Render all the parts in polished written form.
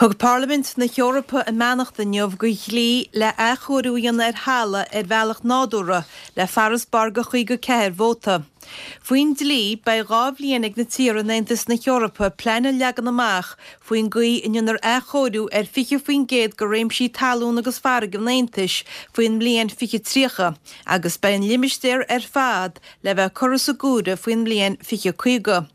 Thug Parlaimint na hEorpa a mbeannacht inniu do dhlí le athchóiriú a dhéanamh ar thalamh ar bhealach nádúrtha le farasbarr de 54 vóta. Faoin dlí, beidh 2 bhliain ag na tíortha in Aontas na hEorpa plean a leagan amach faoin gcaoi a ndéanfar athchóiriú ar 20% de réimsí talún agus farraige an Aontais faoin mbliain 2030 agus beidh an limistéar ar fad le bheith curtha sa gcumhra faoin mbliain 2050.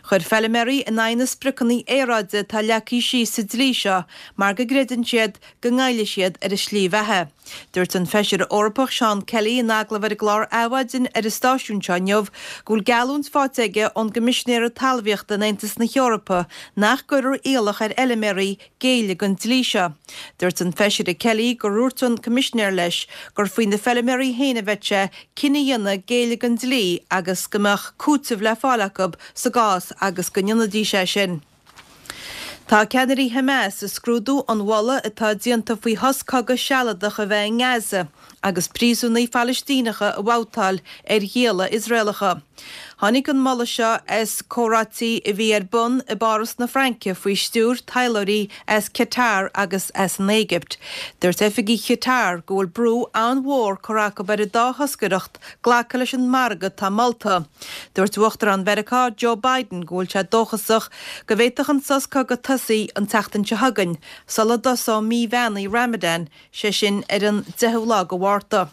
Chuir feilméaraí in aghaidh na spriocanna aeráide atá leagtha síos sa dlí seo mar go gcreideann siad go ngoillfidh siad ar a slí bheatha. Dúirt an Feisire Eorpach Seán Kelly in agallamh ar an gclár Adhmhaidin ar an stáisiún seo inniu go bhfuil geallúint faighte aige ón gCoimisinéara Talmhaíochta in Aontas na hEorpa nach gcuirfear iallach ar fheilméaraí géilleadh don dlí seo. Dúirt an Feisire Kelly gur dhúirt an Coimisinéir leis gur faoi na feilméaraí féin a bheadh sé cinneadh a dhéanamh géilleadh don dlí agus go mbeadh cúiteamh le fáil acu sa gcás agus go ndéanfaidís é sin. Tá ceannairí Hamas ag scrúdú an mholadh atá déanta faoi shos cogaidh sealadach a bheith i nGaza agus príosúnaigh Phalaistíneacha a bhabhtáil ar ghialla Iosraelacha. Tháinig an moladh seo as comhráití a bhí ar bun i bPáras na Fraince faoi stiúir taidhleoirí as Qatar agus as an Éigipt. Dúirt oifigigh Qatar go bhfuil brú an-mhór curtha acu ar an dá thoscaireacht glacadh leis an margadh atá molta. Dúirt Uachtarán Mheiriceá Joe Biden go bhfuil sé dóchasach go bhféadfadh an sos cogaidh tosaí an tseachtain seo chugainn, sula dtosóidh mí bheannaithe Ramadan, sé sin ar an 10ú lá de Mhárta.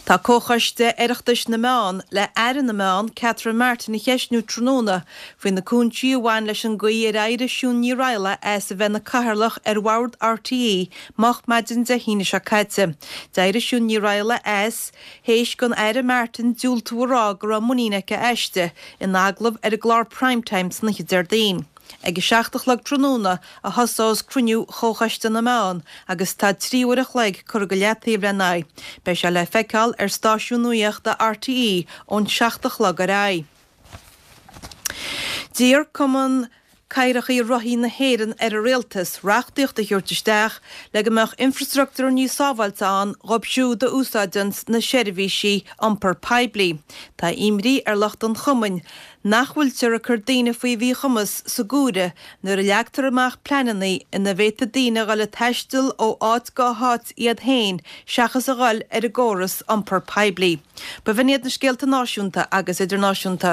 Tá Comhchoiste Oireachtais na Meán le Aire na Meán, Catherine Martin a cheistniú tráthnóna faoi na cúinsí a bhain leis an gcaoi ar éirigh Siún Ní Raghallaigh as a bheith ina cathaoirleach ar bhord RTÉ moch maidin Dé hAoine seo caite. D'éirigh Siún Ní Raghallaigh as théis don Aire Martin diúltú a rá go raibh muinín aici aisti in agallamh ar an gclár Prime Time san oíche Déardaoin. Ag a 7 a chlog tráthnóna a thosós cruinniú Chomhchoiste na Meán agus tá 3 uair a chloig curtha go leataobh lena aghaidh. Beidh sé le feiceáil ar stáisiún nuaíochta RTÉ ón 7 a chlog ar aghaidh. D'iarr Cumann Cathracha Rothaí na hÉireann ar an Rialtas reachtaíocht a thabhairt isteach le go mbeadh infreastruchtúr níos sábháilte ann dhóibh siúd a úsáideanns na seirbhísí iompar poiblí. Tá imní ar lucht an chumainn nach bhfuiltear ag cur daoine faoi mhíchumas sa gcomhaireamh nuair a leagtar amach pleananna ina bhféadfaidh daoine a dhul ag taisteal ó áit go háit iad féin seachas a dhul ar an gcóras iompar poiblí. B'in iad na scéalta náisiúnta agus idirnáisiúnta.